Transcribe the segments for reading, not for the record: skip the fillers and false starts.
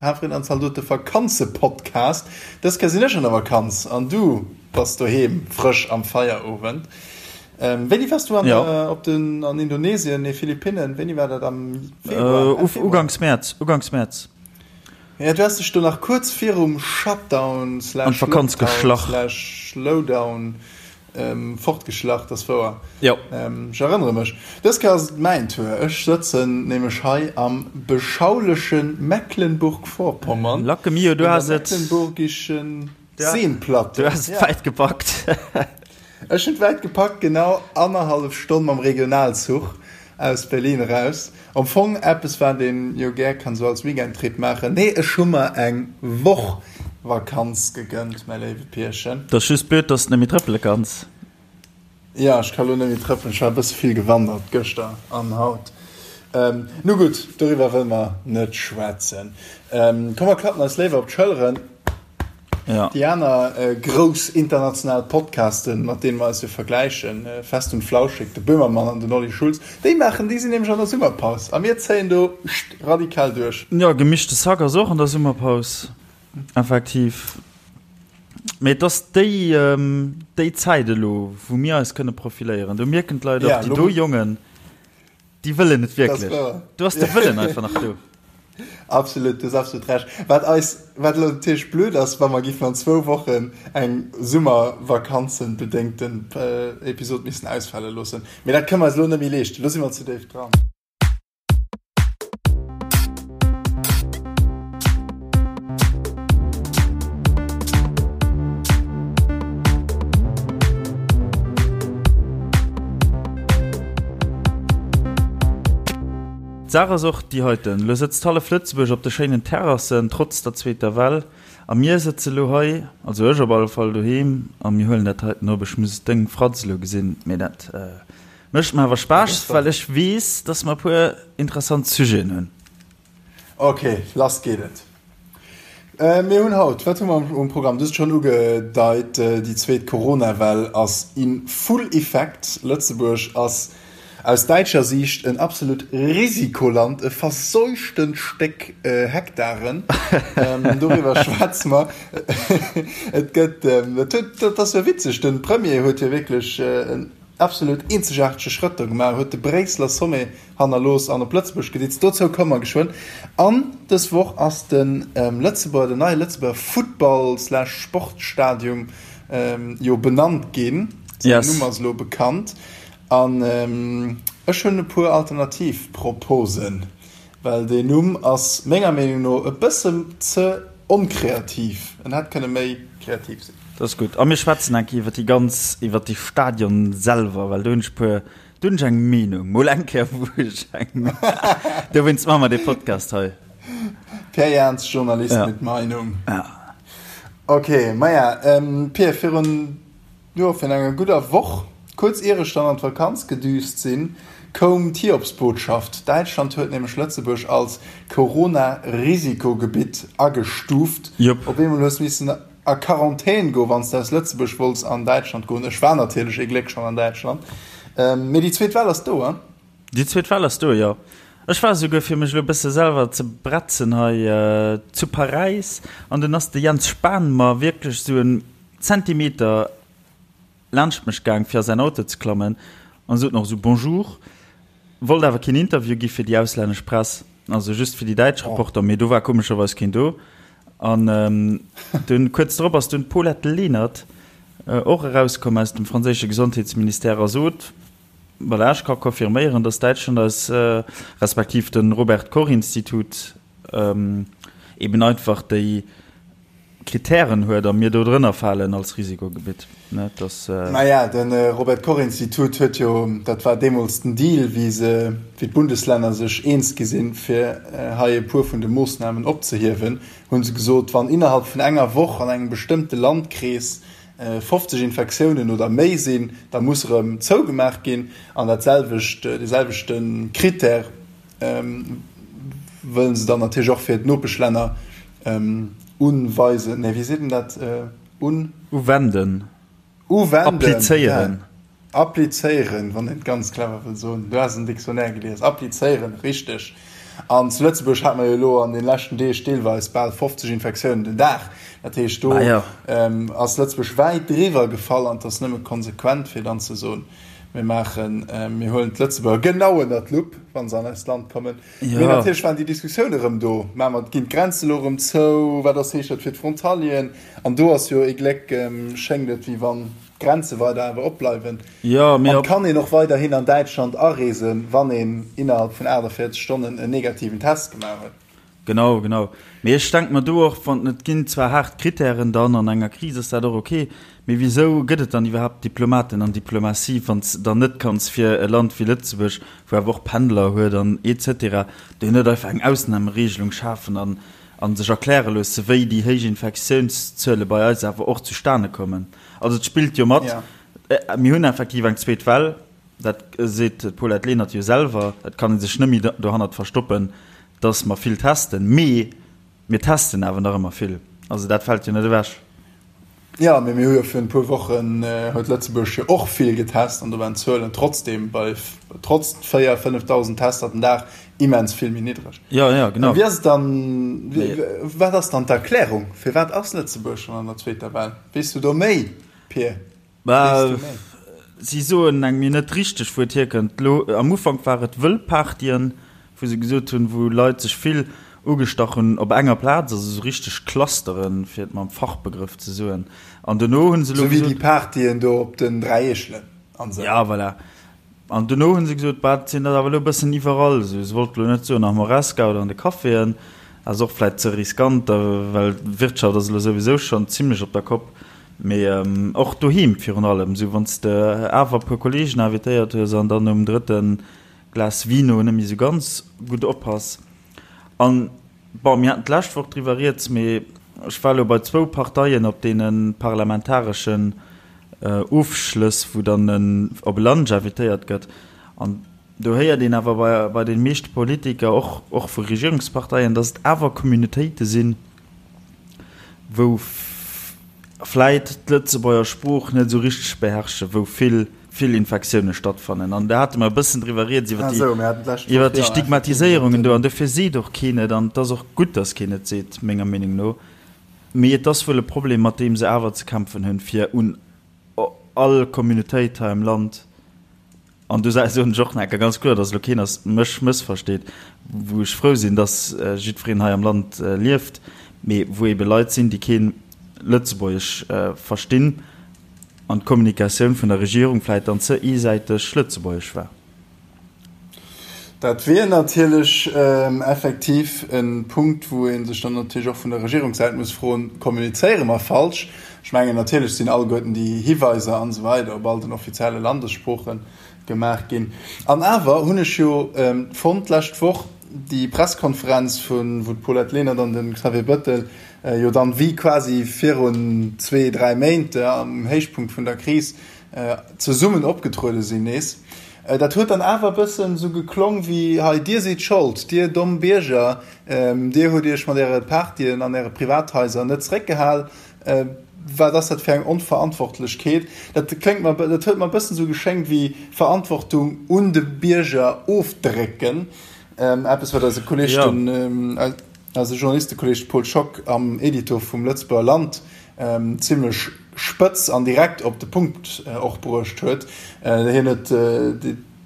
Hafreen an Zaldote Vakanzepodcast. Dës Kéier sinn ech an der Vakanz an du bass doheem frësch am Feierowend. Wéini wars du an op den an Indonesien, nee Philippinnen, wéini war dat am Februar? Enn Februar? Uganks Mäerz, uganks Mäerz. Ja, du has dech do nach kuerz virum Shutdown slash Lockdown slash Lowdown Fortgeschlach, dat ass wouer. Jo. Ech erënnere mech. Dës Kéier ass et mäin Tour. Ech sëtzen nämlech hei am beschauleche Mecklenburg-Vorpommern. Lacke mio, du has et. Un der Mecklenburgischen Seenplatte. Du has et wäit gepackt. Ech hunn et wäit gepackt, genau annerhallef Stonn mam Regionalzuch aus Berlin eraus. Am Fong eppes wat een jo gär kann sou als Weekendtrip maachen. Nee, ech hu mer eng Woch Vakanz gegënnt, mäi léiwe Pierchen. 't ass just blöd, dass de net méi trëppele kanns. Jo, ech ka lo net méi trëppelen, ech war e bësse vill gewandert gëschter an haut. Nu gutt, doriwwer wëlle mer net schwätzen. Komm mer klappen eis léiwer op d'Schëlleren. Ja. Déi aner grouss international Podcasten, mat deene mer eis jo vergläichen, Fest und Flauschig, de Böhmermann an den Olli Schulz, déi maachen, déi sinn nämlech an der Summerpaus a mir zéien do radikal duerch. Jo, Gemischtes Hack ass och an der Summerpaus, effektiv. Mee et ass déi, déi Zäit elo, wou mir eis kënne profiléieren. Do mierken d'Leit och, déi do Jongen, Déi wëllen et wierklech. Do ass de Wëllen einfach nach do. Absolut, du hues absolut Recht. Wat eis, wat elo natierlech blöd ass, wa mer giffen an zwou Wochen eng Summervakanzenbedéngten Episod missen ausfale loossen. Mee dat kënne mer eis elo net méi leeschten. Elo si mer ze déif dran. D'Saach ass och déi heiten, Elo sëtzt hallef Lëtzebuerg op de schéinen Terrassen, trotz der zweeter Well, a mir sëtze lo hei, also ech op alle Fall, doheem a mir huelen dat heiten op. Ech muss deng Fratz elo gesinn, mee dat mécht mer awer Spaass, well ech weess, dass mer e puer interessant Sujeten hunn. Ok, lass geet et. Mir hunn haut, wat hu mer um Programm? Du hues et schonn ugedeit, déi zweet Corona-Well ass in full effect. Lëtzebuerg ass aus däitscher Siicht en absolut Risikoland, e verseuchtent Stéck Hektaren. Doriwwer schwätze mer. Et gëtt, dat huet, dat ass jo witzeg, de Premier huet jo wierklech en absolut eenzegaartege Schrëtt do gemaach, huet de Bréisseler Sommet hannerlooss an op Lëtzebuerg geditzt. Dozou komme mer geschwënn. An dës Woch ass de Lëtzebuerger, den neie Lëtzebuerger Futtball slash Sportstadium jo benannt ginn. Säin Numm ass elo bekannt. An ech hunn e puer alternativ Proposen. Well deen Numm ass menger Meenung no e bëssen ze onkreativ. En hätt kënne méi kreativ sinn. Dat ass gutt. A mir schwätzen eng Kéier iwwer déi ganz, iwwer déi Stadion selwer, well do hunn ech e puer, do hunn ech eng Meenung. Mol eng Kéier wou ech eng, dowéinst maache mer dee Podcast hei. Pierre Jans, Journalist mit Meinung. Ja. Ok, maja, Pierre, virun Jo, virun enger gudder Woch, kuerz ier ech dann an d'Vakanz gedüst sinn, koum d'Hiobsbotschaft, Däitschland huet nämlech Lëtzebuerg als Corona-Risikogebitt agestuuft. Jop. Op eemol hues missen a Quarantän goen, wann s de aus Lëtzebuerg wollts an Däitschland goen. Ech war natierlech ee Gléck schonn an Däitschland. Mee déi zweet Well ass do, hein? Déi zweet Well ass do, jo. Ech war esouguer, fir mech elo e bësse selwer ze bretzen hei, zu Paräis an dunn ass de Jens Spahn mer wierklech esou en Zentimeter laanscht mech gaang fir a säin Auto ze klammen an sot nach esou Bonjour, wollt awer keen Interview gi fir déi auslännesch Press, also just fir déi däitsch Reporter, mee do war komescherweis keen do. An dunn kuerz drop ass dunn d'Paulette Lenert och erauskomm aus dem franséische Gesondheetsministère a sot, Voilà, ech ka confirméieren, datt Däitschland eis, respektiv de Robert Koch Institut eben einfach déi Kritären huet a mir do drënner falen als Risikogebitt. Ne, dass. Naja, de Robert Koch Institut huet jo, dat war deemools den Deal, wéi se, wéi d'Bundeslänner sech eens gi sinn, fir hei e puer vun de Moossnamen opzehiewen, hu se gesot, wann innerhalb vun enger Woch an engem bestëmmte Landkrees 50 Infektiounen oder méi sinn, da muss erëm zougemaach ginn. An dat selwecht, dee selwechte Critère wëlle se dann natierlech och fir d'Nopeschlänner unweisen, nee, wéi seet een dat, un. Uwenden. Uwenden. Applizéieren. Applizéieren, wann een et ganz clever wëll soen. Du has en Dictionnaire gelies. Applizéieren, richteg. An zu Lëtzebuerg hate mer jo elo an de leschten Deeg deelweis bal 50 Infektiounen den Dag. Dat heescht, do ass Lëtzebuerg wäit driwwer gefall an et ass nëmme konsequent, fir dann ze soen, mir maachen, mir huelen d'Lëtzebuerger genau ënner d'Lupp, wa se an eist Land kommen. Mee natierlech waren déi Diskussioune rëm do, Maache mer, ginn d'Grenze elo rëm zou? Wat ass, heescht dat fir d'Frontalieren? An do ass jo ee Gléck, schéngt et, wéi wann d'Grenze weider awer opbleiwen. An kann een och weiderhin an Däitschland areesen, wann een innerhalb vun 48 Stonnen en negativen Test gemaach huet. Genau, genau. Mee ech denke mer do och, wann, et ginn zwar haart Kritären dann, an enger Kris ass dat och ok, mee wisou gëtt et dann iwwerhaapt Diplomaten an Diplomatie, wann s de dann net kanns fir e Land wéi Lëtzebuerg, wou awer och Pendler huet an et cetera, do net einfach eng Ausnahmeregelung schafen an a sech erkläre loosse, wéi déi héich Infektiounszuele bei eis awer och zustane kommen. Also et spillt jo mat, mir hunn effektiv eng zweet Well, dat seet d'Paulette Lenert jo selwer, et kann ee sech net méi dohannert verstoppen, dass mer vill testen, mee mir testen awer nach ëmmer vill. Also dat fält jo net ewech. Jo, mee mir hu jo virun e puer Wochen huet Lëtzebuerg jo och vill getest an do waren d'Zuelen trotzdem bei trotz 4, 5.000 Tester den Dag immens vill méi niddreg. Jo, jo, genau. Wéi ass et dann, wat ass dann d'Erklärung, firwat ass Lëtzebuerg schonn an der zweeter Well? Weess du do méi, Pir? Bah, si soen engem jo net richteg, wou et hierkënnt. Elo am Ufank war et Wëllpartyen, wou se gesot hunn, wou Leit sech vill ugestach hunn op enger Plaz, also esou richteg Clusteren, fir et mam Fachbegrëff ze soen. An dono hunn se elo gesot. Esou wéi déi Partyen do op den 3 Eechelen an esou. Ja, voilà. An dono hu se gesot, bah, et sinn der awer elo e bëssen iwwerall esou. Se wollte elo net soen am Horesca oder an de Caféen, ass och vläit ze riskant, well d'Wirtschaft ass elo souwisou schonn zimlech op der Kopp. Mee och doheem virun allem, esou wann s de awer e puer Kolleegen invitéiert hues an dann nom drëtte Glas Vino net méi esou ganz gutt oppass. An, bon, mir haten d'lescht Woch driwwer rieds, mee ech war elo bei zwou Parteien op deene parlamentareschen Ofschlëss, wou dann op e Lunch invitéiert gëtt. An do héiert een awer bei, bei de meeschte Politiker, och, och vu Regierungsparteien, datt et awer Communautéite sinn, wou vläit d'Lëtzebuerger Sprooch net esou richteg beherrschen, wou vill, vill Infektioune stattfannen. An do hate mer e bëssen driwwer rieds, iwwer déi, iwwer déi Stigmatiséierungen do. An dofir seet och keen et. An et ass och gutt, datt keen et seet, menger Meenung no. Mee et ass wuel e Problem, mat deem se awer ze kämpfen hunn, fir un all Communautéit hei am Land, an do soen ech och nach eng Kéier ganz kloer, dass elo keen ass mech mëssversteet, wou ech frou sinn, dass jiddwereen hei am Land lieft, mee wou eebe Leit sinn, déi kee Lëtzebuergesch verstinn an d'Kommunikatioun vun der Regierung vläicht dann ze eesäiteg lëtzebuergesch war. Dat wier natierlech effektiv e Punkt, wou ee sech dann natierlech och vun der Regierungssäit muss froen, Kommunizéiere mer falsch? Ech mengen, natierlech sinn alleguerten déi Hiweiser an esou weider op all den offizielle Landessprooche gemaach ginn. An awer hunn ech jo fonnt d'lescht Woch déi Presskonferenz, vun wou d'Paulette Lenert an de Xavier Bettel jo dann wéi quasi virun zwee, dräi Méint am Héichpunkt vun der Kris zesummen opgetruede sinn nees. Dat huet dann awer e bëssen esou geklong wéi, Hei, dir sidd Schold, dir domm Bierger, dir hutt iech mat äre Partyen an äre Privathaiser net zeréckgehal. Wat ass dat fir eng Onverantwortlechkeet? Dat kléngt mer, dat huet mer e bëssen esou geschéngt wéi Verantwortung un de Bierger ofdrécken. Eppes, wat eise Kolleg, den, eise Journalistekolleg Paul Schock am Editor vum Lëtzebuerger Land zimlech spëtz an direkt op de Punkt och bruecht huet. Hien huet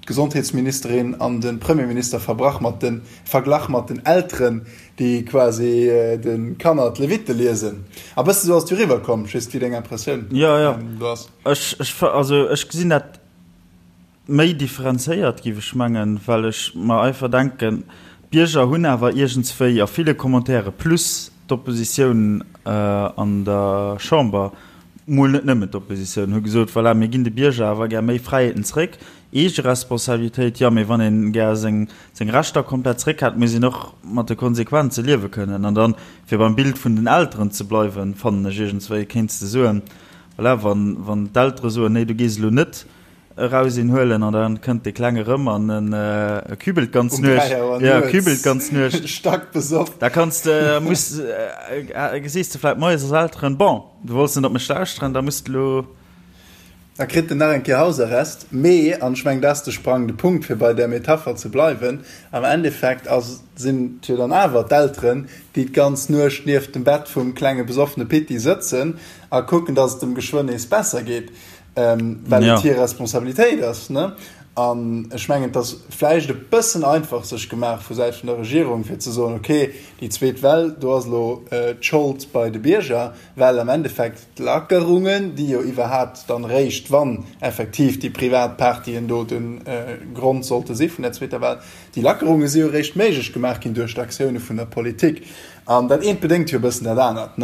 d'Gesondheetsministerin an de Premierminister verbrach mat de verglach mat den Elteren, déi quasi de Kanner d'Levitte liesen. A bësse sou ass et jo eriwwer komm. Ech weess net, wéi deng Impressioun do ass. Jo, jo. Ech, also ech gesinn dat Méi differenzéiert, giff ech mengen, well ech mer einfach denken, d'Bierger hunn awer iergendswéi a ville Commentaire plus d'Oppositioun an der Chamber, mol net nëmmen d'Oppositioun, hu gesot, voilà, mir ginn de Bierger awer gär méi Fräiheeten zréck, Eegeresponsabilitéit, jo, mee wann een gär seng seng Rechter komplett zréck hätt, muss een och mat de Konsequenze liewe kënnen. An dann, fir beim Bild vun den Elteren ze bleiwen, fannen ech iergendswéi, kéints de soen, voilà, wann wann d'Eltere soen, nee, du gees elo net Eraus een huelen an dann kënnt de Klenge rëm an en kübelt d'ganz Nuecht. Ja, kübelt d'ganz Nuecht. Stack besoff. Da kanns de, muss, gesees de vläit moies als Elteren, bon, du wollts net op mech lauschteren, da muss de lo. Da kritt en nach eng Kéier Hausarrest. Mee, an ech mengen, dat ass de sprangende Punkt, fir bei där Metapher ze bleiwen, am Endeffekt ass, sinn et jo dann awer d'Elteren, déi d'ganz Nuecht nieft dem Bett vum klenge besoffene Pitti sëtzen a kucken, dass et em geschwënn nees besser geet, well et hir Responsabilitéit ass. An ech mengen, et ass vläicht e bëssen einfach sech gemaach vu Säit vun der Regierung, fir ze soen, okay, déi zweet Well, do ass elo d'Schold bei de Bierger, well am Endeffekt d'Lackerungen, déi jo iwwerhaapt dann eréischt, wann effektiv déi privat Partyen do de Grond sollte si vun der zweeter Well, déi Lackerunge si jo eréischt méiglech gemaach ginn duerch d'Aktioune vun der Politik. An dat eent bedéngt jo e bëssen dat anert.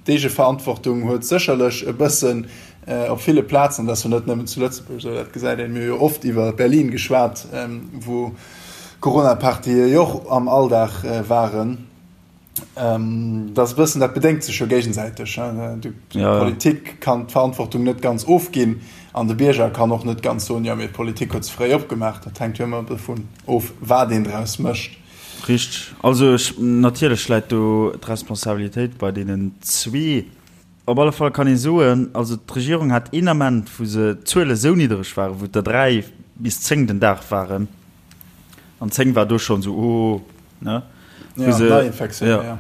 D'Eegeverantwortung huet sécherlech e bëssen op ville Plazen, dat ass jo net nëmmen zu Lëtzebuerg esou, dat gesäit een, mir hu jo oft iwwer Berlin geschwat, wou Corona-Partye jo och am Alldag waren, dat ass e bëssen, dat bedéngt sech jo géigesäiteg. D'Politik kann d'Verantwortung net ganz ofginn an de Bierger kann och net ganz soen, jo mee d'Politik huet ze fréi opgemaach. Dat hänkt jo ëmmer dovun of, wat een draus mécht. Richteg. Also ech, natierlech läit do d'Responsabilitéit bei deenen zwee. Op alle Fall kann ee soen, also d'Regierung hat een Ament, wou se d'Zuele sou niddereg waren, wou et der 3 bis 10 den Dag waren, an 10 war do schonn esou, oh, ne? Wou se, Neiinfektioune, ja.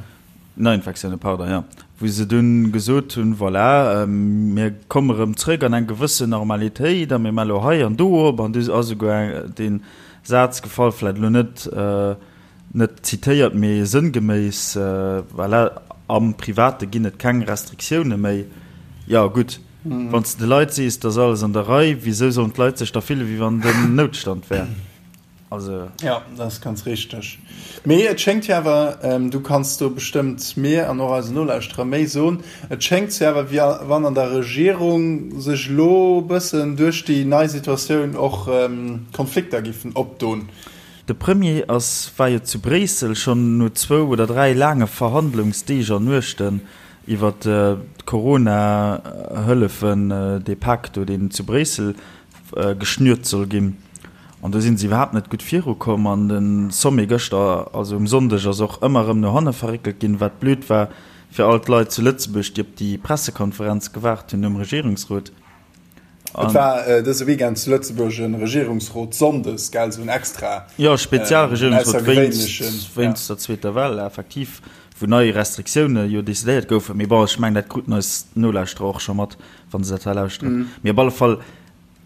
Neiinfektioune, pardon, jo. Wou se dunn gesot hunn, voilà, mir komme rëm zrëck an eng gewëssen Normalitéit a mir maache lo hei an do op. An du ass esouguer dee Saz gefall, vläicht elo net, net zitéiert, mee sënngeméiss, voilà, am Private ginn et keng Restriktioune méi. Jo, gutt, wann s de de Leit sees, et ass alles an der Rei, wisou sollen d'Leit sech da fille wéi wann den Noutstand wär? Also. Ja, dat ass ganz richteg. Mee et schéngt jo awer, du kanns do bestëmmt mir an och eisen Nolauschterer méi soen, et schéngt jo awer, wéi wann an der Regierung sech elo e bëssen duerch déi nei Situatioun och Konflikter giffen opdon. De Premier ass, war jo zu Bréissel schonn no zwou oder 3 laange Verhandlungsdeeg an Nuechten iwwer d'Corona-Hëllefen, dee Pak do, deen zu Bréissel geschnürt soll ginn. An do si se iwwerhaapt net gutt virukomm. An de Sommet gëschter, also um Sonndeg, ass och ëmmer erëm no hanne verréckelt ginn, wat blöd war fir all d'Leit zu Lëtzebuerg, déi op déi Pressekonferenz gewaart hunn nom Regierungsrot. Et war dëse Weekend zu Lëtzebuerg e Regierungsrot sonndes, gell, esou en extra, Jo, Spezialregierungsrot wéinst, wéinst der zweeter Well, effektiv, wou nei Restriktioune jo decidéiert goufen. Mee bon, ech mengen, dat kruten eis Nolauschterer och scho mat, wa se dat hei lauschteren. Mee op alle Fall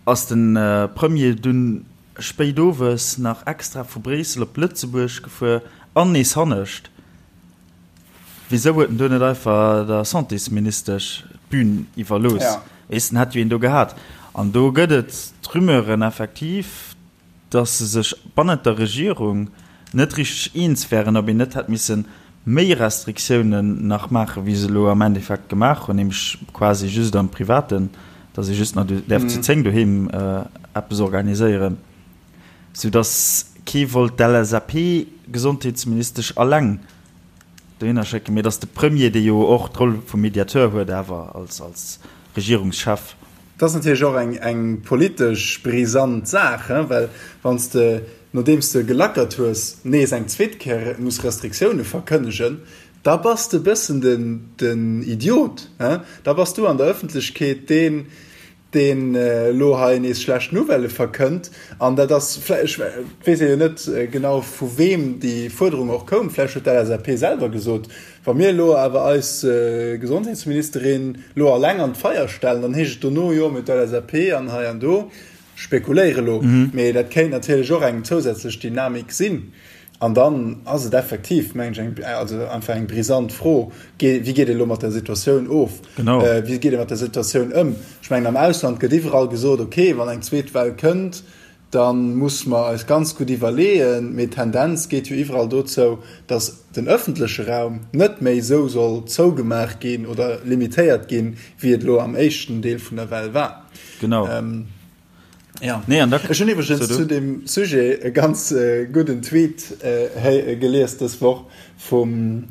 Ass den Premier dunn spéit owes nach extra vu Bréissel op Lëtzebuerg gefuer an nees hannescht? Wisou huet en do net einfach der Santésministesch d'Bün iwwerlooss? Weess, en hätt jo een do gehat. An do gëtt et d'Rumeuren effektiv, dass se sech bannent der Regierung net richteg eens wären, ob een net hätt misse méi Restriktiounen nach maachen, wéi se elo am Endeffekt gemaach hunn, nämlech quasi just am Privaten, dass ee just nach däerf zu 10 doheem eppes organiséieren, soudass kee wollt d'LSAP-Gesondheetsministesch alleng dohinner schécken, mee dass de Premier, dee jo och d'Roll vum Mediateur huet awer als Regierungschef, Dat ass natierlech och eng eng politesch brisant Saach, well wann s de, nodeems de gelackert hues, nees eng zweet Kéier muss Restriktioune verkënnegen, da bass de e bëssen den den Idiot. Da bass du an der Ëffentlechkeet deen, deen elo hei nees schlecht Nouvellë verkënnt. An dat ass vläicht, ech weess jo net genau vu weem déi Fuerderung och koum, vläicht huet d'LSAP selwer gesot, Wa mir elo awer eis Gesondheetsministerin elo alleng an d'Feier stellen, dann heescht et dono, jo, mee d'LSAP an hei an do. Spekuléiere elo, mee dat kéint natierlech och eng zousätzlech Dynamik sinn. An dann ass et effektiv, mengen ech, eng, also einfach eng brisant Fro, Wéi geet ee elo mat der Situatioun of? Wéi geet ee mat der Situatioun ëm? Ech mengen, am Ausland gëtt iwwerall gesot, okay, wann eng zweet Well kënnt, da muss mer eis ganz gutt iwwerleeën, mee d'Tendenz geet jo iwwerall dozou, datt den öffentleche Raum net méi esou soll zougemaach ginn oder limitéiert ginn, wéi et elo am éischten Deel vun der Well war. Genau. Ja. Nee, an da, Ech hunn iwwregens zu deem Sujet e ganz gudden Tweet gelies dës Woch vum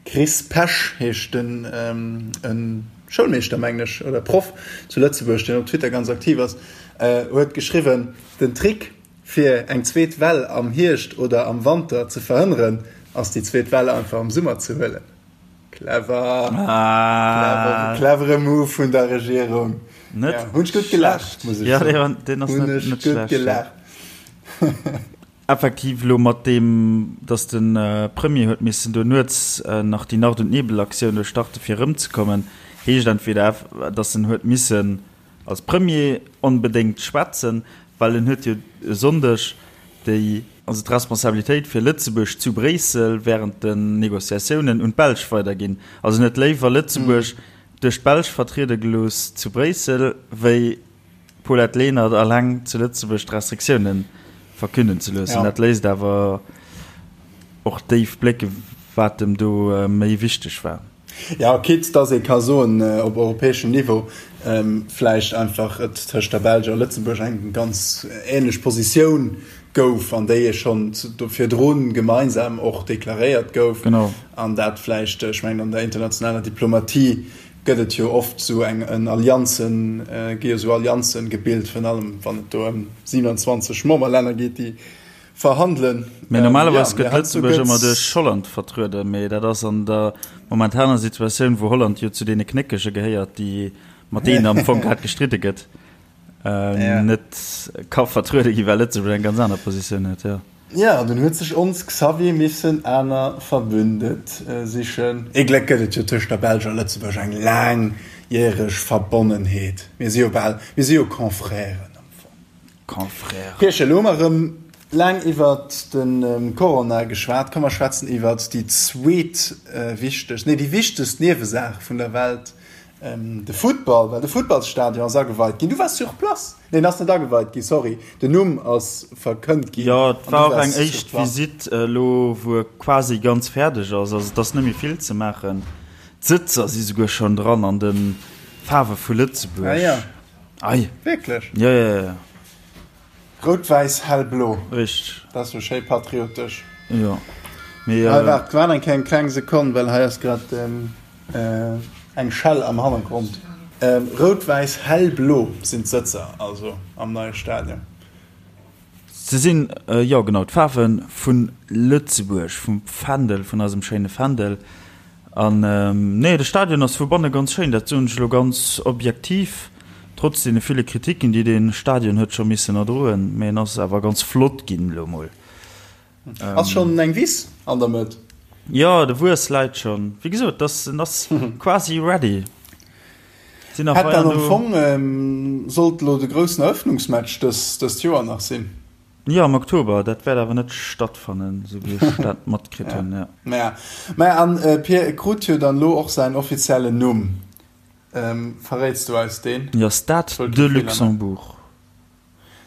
Chris Pesch heescht den, e Schoulmeeschter mengen ech, oder Proff zu Lëtzebuerg, deen op Twitter ganz aktiv ass, huet geschriwwen, Den Trick fir eng zweet Well am Hierscht oder am Wanter ze verhënneren, ass déi zweet Well einfach am Summer ze huelen. Clever! Clever, clevere Move vun der Regierung. Net Ja, hunn ech gutt gelaacht, muss ech Ja, soen. dee war, deen ass Hunn net, ech net gutt schlecht, ja. gelaacht. Effektiv elo mat deem, datt de Premier huet missen do nuets nach déi Nacht und Nebel-Aktioun do starte fir erëmzekommen, heescht entweder, datt en huet missen als Premier onbedéngt schwätzen, well en huet jo e Sonndeg déi, also d'Responsabilitéit fir Lëtzebuerg zu Bréissel während den Négociatiounen un d'Belsch weiderginn. Also en huet léiwer Lëtzebuerg duerch d'Belsch vertriede gelooss zu Bréissel, wéi Paulette Lenert alleng zu Lëtzebuerg d'Restriktioune verkünden ze loossen. Dat léisst awer och déif blécke wat em do méi wichteg war. Jo, quitte dass ee ka soen, op europäeschem Niveau vläicht einfach et tëscht der Belsch a Lëtzebuerg eng ganz änlech Positioun gouf an déi ee schonn do virdru gemeinsam och deklaréiert gouf. An dat vläicht, ech mengen an der internationaler Diplomatie gëtt et jo oft sou eng en Allianzen, gi jo sou Allianzen gebilt, virun allem wann et do ëm 27 Memberlänner geet, déi verhandelen. Mee normalerweis gëtt Lëtzebuerg ëmmer duerch Holland vertrueden, mee dat ass an der momentaner Situatioun, wou Holland jo zu deene Knéckege gehéiert, déi mat deenen am Fong grad gestridde gëtt, net ka vertruede ginn, well Lëtzebuerg eng ganz aner Positioun huet, jo. Jo, dunn huet sech ons Xavier missen aner Verbündet sichen. Ee Gléck gëtt et jo tëscht der Belsch a Lëtzebuerg eng laangjäreg Verbonnenheet. Mir si jo bal, mir si jo Confrèren am Fong. Confrèren. Pierchen, elo hu mer erëm laang iwwert de Corona geschwat. Komm mer schwätzen iwwert déi zweet wichtegst, nee déi wichtegst Niewesaach vun der Welt, de Futtball, well de Futtballsstadion ass ageweit ginn. Du waars sur place. Nee, en ass net ageweit ginn, sorry. Den Numm ass verkënnt ginn. Jo, et war och eng éischt Visitt elo, wou e quasi ganz fäerdeg ass. Also et ass net méi vill ze maachen. D'Sëtzer si souguer schonn dran an de Faarwe vu Lëtzebuerg. Ah jo, Ei. wierklech? Jo, jo, jo. Rout, wäiss, hell blo. Richteg. Dat ass jo schéi patriotesch. Jo, mee. Hei, waart, waart eng kleng, kleng Sekonn, well hei ass grad eng Schell am Hannergrond. Rout, wäiss, hell blo sinn d'Sëtzer also am neie Stadion. Se sinn, jo genau, d'Faarwe vu Lëtzebuerg, vum Fändel, vun eisem schéine Fändel. An nee, de Stadion ass vu banne ganz schéin, dat soen ech elo ganz objektiv, trotz deene ville Kritiken, déi dee Stadion huet scho missen erdroen, mee en ass awer ganz flott ginn elo mol. Ass schonn eng Wiss an der Mëtt? Jo, de Wuess läit schonn. Wéi gesot, dass en ass quasi ready. Sinn nach Hätt dann am Fong sollt elo de groussen Eröffnungsmatch dëst Joer nach sinn. Jo, am Oktober. Dat wäert awer net stattfannen, esou wéi ech dat matkritt hunn. Jo. Maja, maja, an Pir, e krut jo dann elo och säin offiziellen Numm. Verréits du eis deen? Jo, Stade de Luxembourg.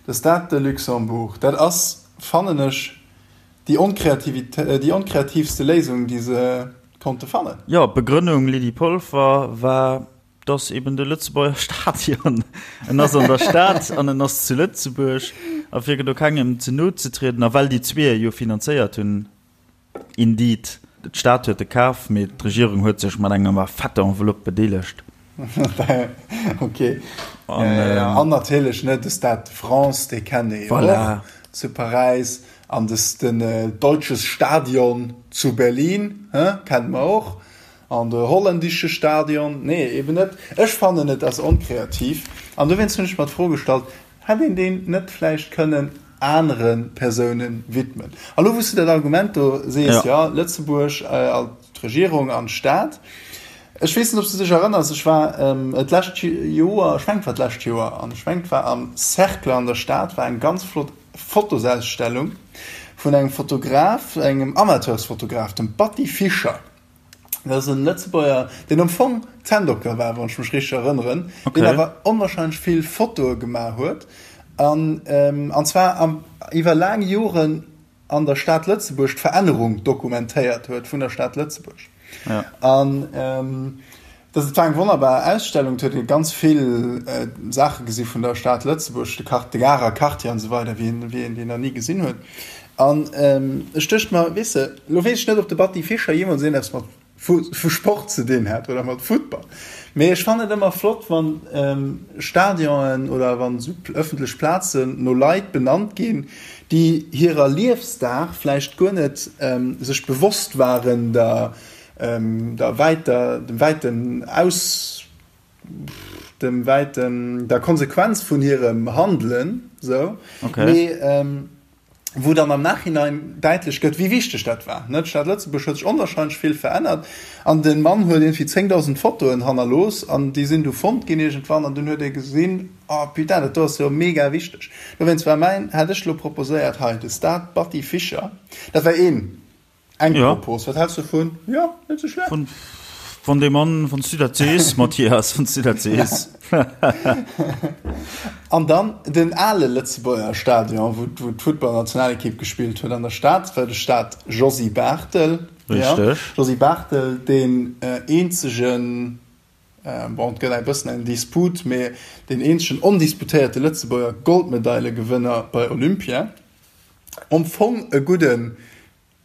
De Stade de Luxembourg, dat ass, fannen ech, déi onkreativit-, déi onkreativste Léisung, déi se konnte fannen. Jo, d'Begrënnung, Lydie Polfer, war, dass eben de Lëtzebuerger Stadion, en ass an der Stad an en ass zu Lëtzebuerg, a fir do kengem ze no ze trieden, a well déi zwee e jo finanzéiert hunn, Indeed, d'Stad huet e kaf, mee d'Regierung huet sech mat enger fetter Enveloppe bedeelegt. Ok. An natierlech, ne, de Stade de France, dee kennt ee jo och zu Paräis. An den Deutsches Stadion zu Berlin, he, kenne mer och. An de Holländische Stadion, nee, eben net. Ech fannen, et ass onkreativ. An dowéinst hunn ech mer d'Fro gestallt, Hätt een deen net vläicht kënnen anere Persoune widmen? A lo, wou s du dat Argument do sees, jo, Lëtzebuerg, d'Regierung an d'Stad. Ech weess net, ob s du dech erënners, ech war d'lescht Joer, ech mengen, et war d'lescht Joer, an ech mengen, et war am Cercle an der Stad, war eng ganz flott Fotosausstellung vun engem Fotograf, engem Amateursfotograf, dem Batty Fischer. Dat ass en Lëtzebuerger, deen am Fong Zänndokter war, wann ech mech richteg erënneren, okay. deen awer onwahrscheinlech vill Fotoe gemaach huet. An, ähm, an zwar am, iwwer laang Joren an der Stad Lëtzebuerg d'Verännerung dokumentéiert huet vun der Stad Lëtzebuerg. Ja. An ähm, dat war eng wonnerbar Ausstellung, huet ee ganz vill äh, Saache gesi vun der Stad Lëtzebuerg, de Quart, de Garer Quartier an esou weider, wéi een, wéi een deen nach ni gesinn huet. An ech duecht mer, weess de, lo weess ech net, ob de Batty Fischer jeemools eppes mat vu Sport ze dinn hat oder mat Futtball, mee ech fannen et ëmmer flott, wann Stadionen oder wann esou ëffentlech Plazen no Leit benannt ginn, déi hirer Liefsdag vläicht guer net sech bewosst waren der der wäiter, dem wäiten Aus. dem wäiten, der Konsequenz vun hirem Handelen, sou, Okay. mee wou dann am Nachhinein däitlech gëtt, wéi wichteg dat war. Ne, d'Stad Lëtzebuerg huet sech onwahrscheinlech vill verännert an de Mann huet iergendwéi 10.000 Fotoen hannerlooss an déi sinn du fonnt ginn iergendwann an dunn huet ee gesinn, oh putain, dat do ass jo mega wichteg. Dowéinst war mäin, hat ech elo proposéiert hei, de Stade Batty Fischer, dat war een. Eng Ja. Propos, wat häls du dovun? Jo, net sou schlecht. Wann, wann dee Mann, wann s du dat sees, Mathias, wann s du dat sees. An dann den ale Lëtzebuerger Stadion, wou, wou d'Futtballnationalekipp gespillt huet an der Stad, war de Stade Josy Barthel. Ja, Richteg. Josy Barthel, deen eenzegen, bon, et gëtt eng bëssen eng Disput, mee deen eenzegen ondisputéierte Lëtzebuerger Goldmedailegewënner bei Olympia. Am Fong e gudden,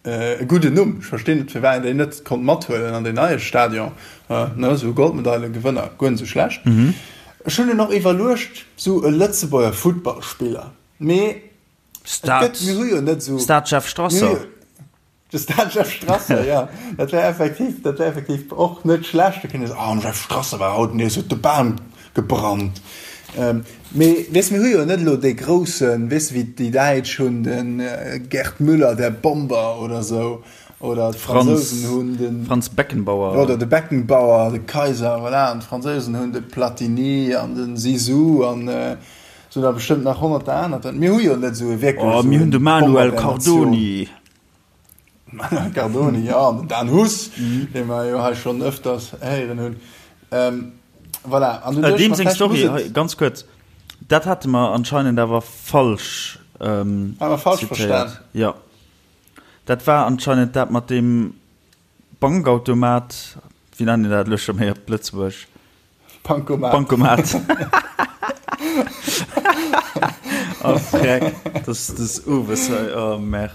e gudden Numm. Ech verstinn net, firwat een déi net konnt mathuelen an deen neie Stadion. Ne, esou Goldmedailegewënner, guer net esou schlecht. Ech hunn dunn och iwwerluecht, esou e Lëtzebuerger Futtballspiller, mee et gëtt, mir hu jo net esou. Stade Jeff Strasser. De Stade Jeff Strasser, jo, dat wär effektiv, dat wär effektiv och net schlecht. Da kéint ee soen, Ah, den Jeff Strasser war haut nees, huet de Bam gebrannt. Mee weess, mir hu jo net elo dee groussen, weess de, wéi déi Däitsch hunn de Gerd Müller, der Bomber oder esou, oder d'Fransousen hunn den. Franz Beckenbauer. Oder de Beckenbauer, de Kaiser, voilà, an d'Fransousen hunn de Platini an de Zizou an esou nach bestëmmt nach honnerter aner. Mir hu jo net esou e wierklech Oh, esou mir hunn e de Manuel Bomber der Natioun. Cardoni. Manuel Cardoni, jo, an den Dan Huss, dee mer jo hei schonn ëfters héieren hunn. Voilà, an du duecht Deem mer, seng vläicht Story, muss et. hei, ganz kuerz, dat hate mer anscheinend awer falsch Hate mer falsch verstan. zitéiert. Jo, dat war anscheinend dat mat deem Bankautomat, wéi nennen een dat elo scho méi op Lëtzebuerg? Bankomat. Bankomat. Oh freck, das das owes hei, oh merde.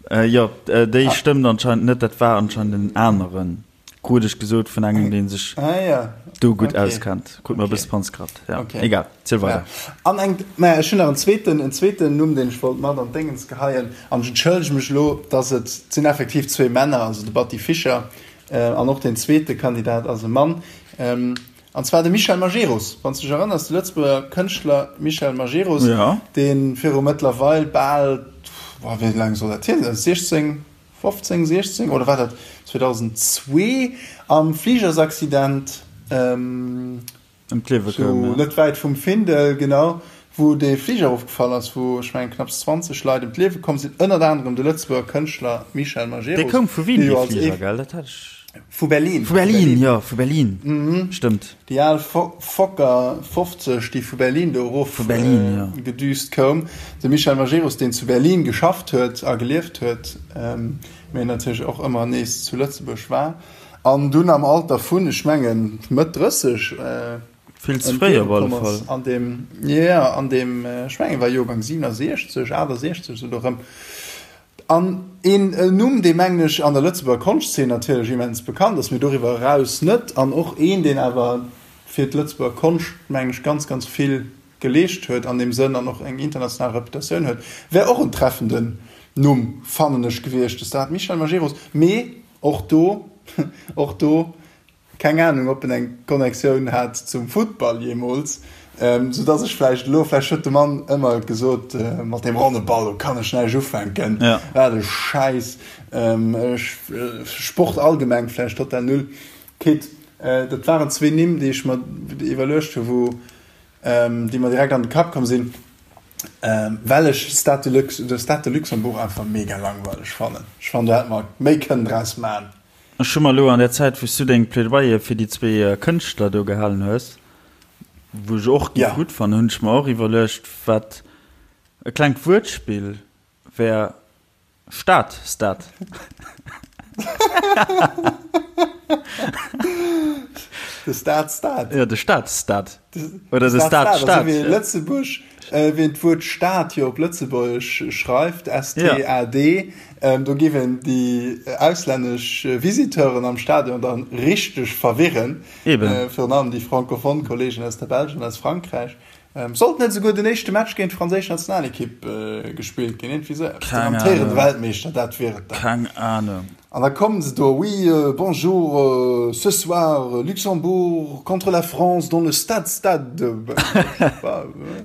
Äh, jo, äh, déi stëmmt anscheinend net, dat war anscheinend en aneren, krut ech gesot vun engem, dee sech Ah ja. do gutt Okay. auskennt. Krut mer e Okay. bësse Panzkraft. Ja, Okay. egal, ziel Ja. weider. An eng, naja, ech hunn nach en zweeten, en zweeten Numm, deen ech wollt mat an d'Déngens geheien. An ech entschëllege mech elo, dass et, et sinn effektiv zwee Männer, also de Batty Fischer An och deen zweete Kandidat ass e Mann, an zwar de Michel Majerus. Wann s de dech erënners, de Lëtzebuerger Kënschtler Michel Majerus, dee viru mëttlerweil bal, wéi laang soll dat hier sinn, 16, 15, 16 oder war dat 2002 am Fligersaccident, Ëm d'Liewe koum, ja. Net wäit vum Findel, genau, wou dee Fliger erofgefall ass, wou, ech mengen, knapps 20 Leit ëm d'Liewe komm sinn, ënnert anerem de Lëtzebuerger Kënschtler Michel Majerus, Dee koum vu Wien, dee dee jo als Fliger, ee. gell? Dat hat ech. Vu Berlin. Vu Berlin, jo, vu Berlin, stëmmt. Déi al Fokker 50, déi vu Berlin do erof Vu Berlin, jo. gedüst koum. De Michel Majerus, deen zu Berlin geschafft huet a gelieft huet, mee natierlech och ëmmer nees zu Lëtzebuerg war. An dunn am Alter vun, ech mengen, Mëtt 30 Vill ze ëm fréi d'Liewe op alle komm ass. Fall. An deem, jo, jo, an deem, ech mengen, war Joergang 67, 68, esou do erëm. An een Numm, dee, mengen ech, an der Lëtzebuerger Konschtzeen natierlech immens bekannt ass, mee doriwwer eraus net, an och een, deen awer fir d'Lëtzebuerger Konscht, mengen ech, ganz, ganz vill geleescht huet an deem Sënn an och eng international Reputatioun huet, wär och en treffenden Numm, fannen ech, gewiescht, de Stade Michel Majerus. Mee Och do, och do, keng Ahnung, ob en eng Connectioun hat zum Futtball jeemools, sou dass ech vläicht elo, vläicht huet de Mann ëmmer gesot, mat deem ronne Ball, do kann ech näischt ufänken, wat e Schäiss, ech, Sport allgemeng vläicht total null. Kit, dat waren zwee Nimm, déi ech mer iwwerluecht hu wou, déi mer direkt an de Kapp komm sinn, well ech Stade de Lux, de Stade de Luxembourg einfach mega langweileg fannen. Ech fannen, do hätt mer méi kënnen draus man. Ech hu mer elo an der Zäit, wou s du deng Plädoyer fir déi zwee Kënschtler do gehalen hues, wou ech och géif gutt fannen, hunn ech mer och iwwerluecht, wat e klengt Wuertspill wär, Stad, Stad. De Stad, Stad. Jo, de Stad, Stad. Oder de Stad, Stad. Also wéi Lëtzebuerg, wéi een d'Wuert Stad jo op Lëtzebuergesch schreift, S-T-A-D, do géif een déi auslännesch Visiteuren am Stadion dann richteg verwirren. Eben. Virun allem déi francophone Kollegen aus der Belsch an aus Frankräich. Sollt net esouguer den éischte Match géint d'franséisch Nationalekipp gespillt ginn? Iergendwéi esou eppes. Den amtéierende Weltmeeschter, dat wier et dann. Keng Ahnung. An da kommen se do, Oui, bonjour, ce soir, Luxembourg contre la France dans le stade stade.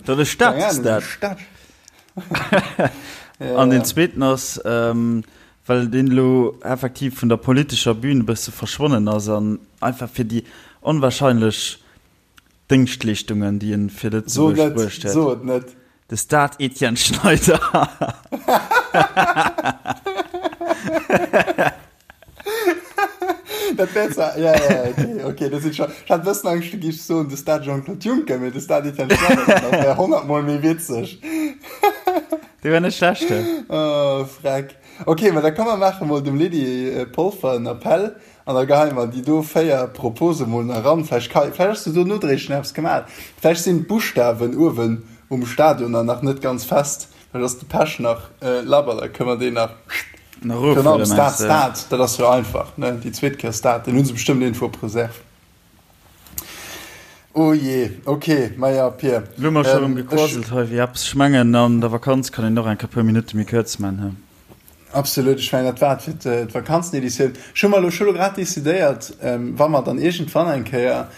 Dans le stade stade. An deen zweeten ass, well deen elo effektiv vun der politescher Bühn e bësse verschwonnen ass an einfach fir déi onwahrscheinlech Déngschtleeschtungen, déi en fir Lëtzebuerg bruecht huet. So et net! De Stade Etienne Schneider. Dat wär zwar, ja, ja, okay, okay, dat sinn scho, ech hat e bëssen Angscht, du giffs soen, de Stade Jean-Claude Juncker, mee de Stade Etienne Schneider, dat wär honnertmol méi witzeg. Dee wär net schlecht, he? Oh, freck. Okay, ma da komm mer maache mol dem Lydie Polfer en Appell An da geheie mer déi do 4 Propose mol nach eran. Vläicht ka, vläicht ass jo do nodréiglech nach eppes gemat. Vläicht sinn d'Buschtawen uewen um Stadion dann nach net ganz fest. Vläicht ass de Pech nach labber, da kënne mer deen nach, Nach virun allem erofhuelen, Stade, mengst de? Stade, dat ass jo einfach, ne? Déi zweet Kéier Stade, deen hu se bestëmmt iergendwou op Reserve. Oh jee, ok, maja Pir, Lo hu mer scho rëm ech. gequasselt hei wéi eppes. Ech mengen, an der Vakanz kann een och eng Kéier puer Minutte méi kuerz man, he? Absolut, ech mengen dat war et fir d'Vakanzeneditioun. Ech hu mer elo scho lo grad decidéiert, wa mer dann iergendwann eng Kéier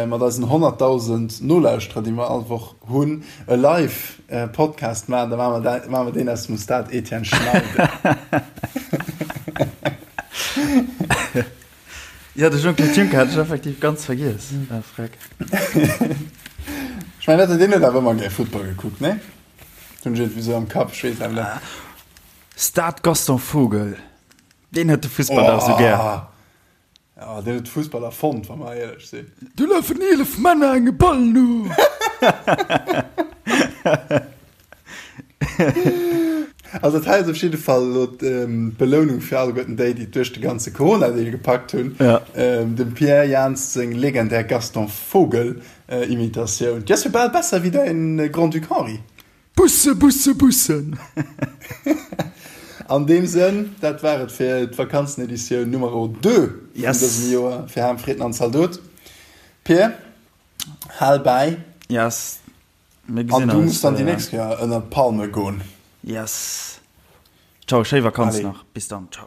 mat eisen 100.000 Nolauschterer, déi mer all Woch hunn, e Live-Podcast maachen, da maache mer dat, maache mer deen aus dem Stade Etienne Schneider. Jo, de Jean-Claude Juncker hat ech effektiv ganz vergiess. Ah, freck. Ech mengen, deen huet awer ëmmer gär Futtball gekuckt, nee? Hunn ech iergendwéi sou am Kapp, ech weess awer net. Stade Gaston Vogel, deen huet de Fussball dach esou gär. Oh, deen huet de Fussball erfonnt, wa mer éierlech sinn. Do lafen 11 Männer engem Ball no. Also dat hei ass op jidde Fall elo d'Belounung fir alleguerten déi, déi et duerch de ganze Corona-Deal gepackt hunn. Dem Pierre Jans seng legendär Gaston Vogel Imitatioun, déi ass jo bal besser wéi däin Grand-Duc Henri. Busse, Busse, Bussen! An deem Sënn, dat war et fir d'Vakanzeneditioun Numero 2 vun dësem Joer fir Ham, Fritten an Zaldot. Pir, hal bäi. Yes, mir gesinn eis. An du muss dann déi nächst Kéier ënnert d'Palme goen. Yes. Ciao, schéi Vakanz nach. Bis dann, ciao.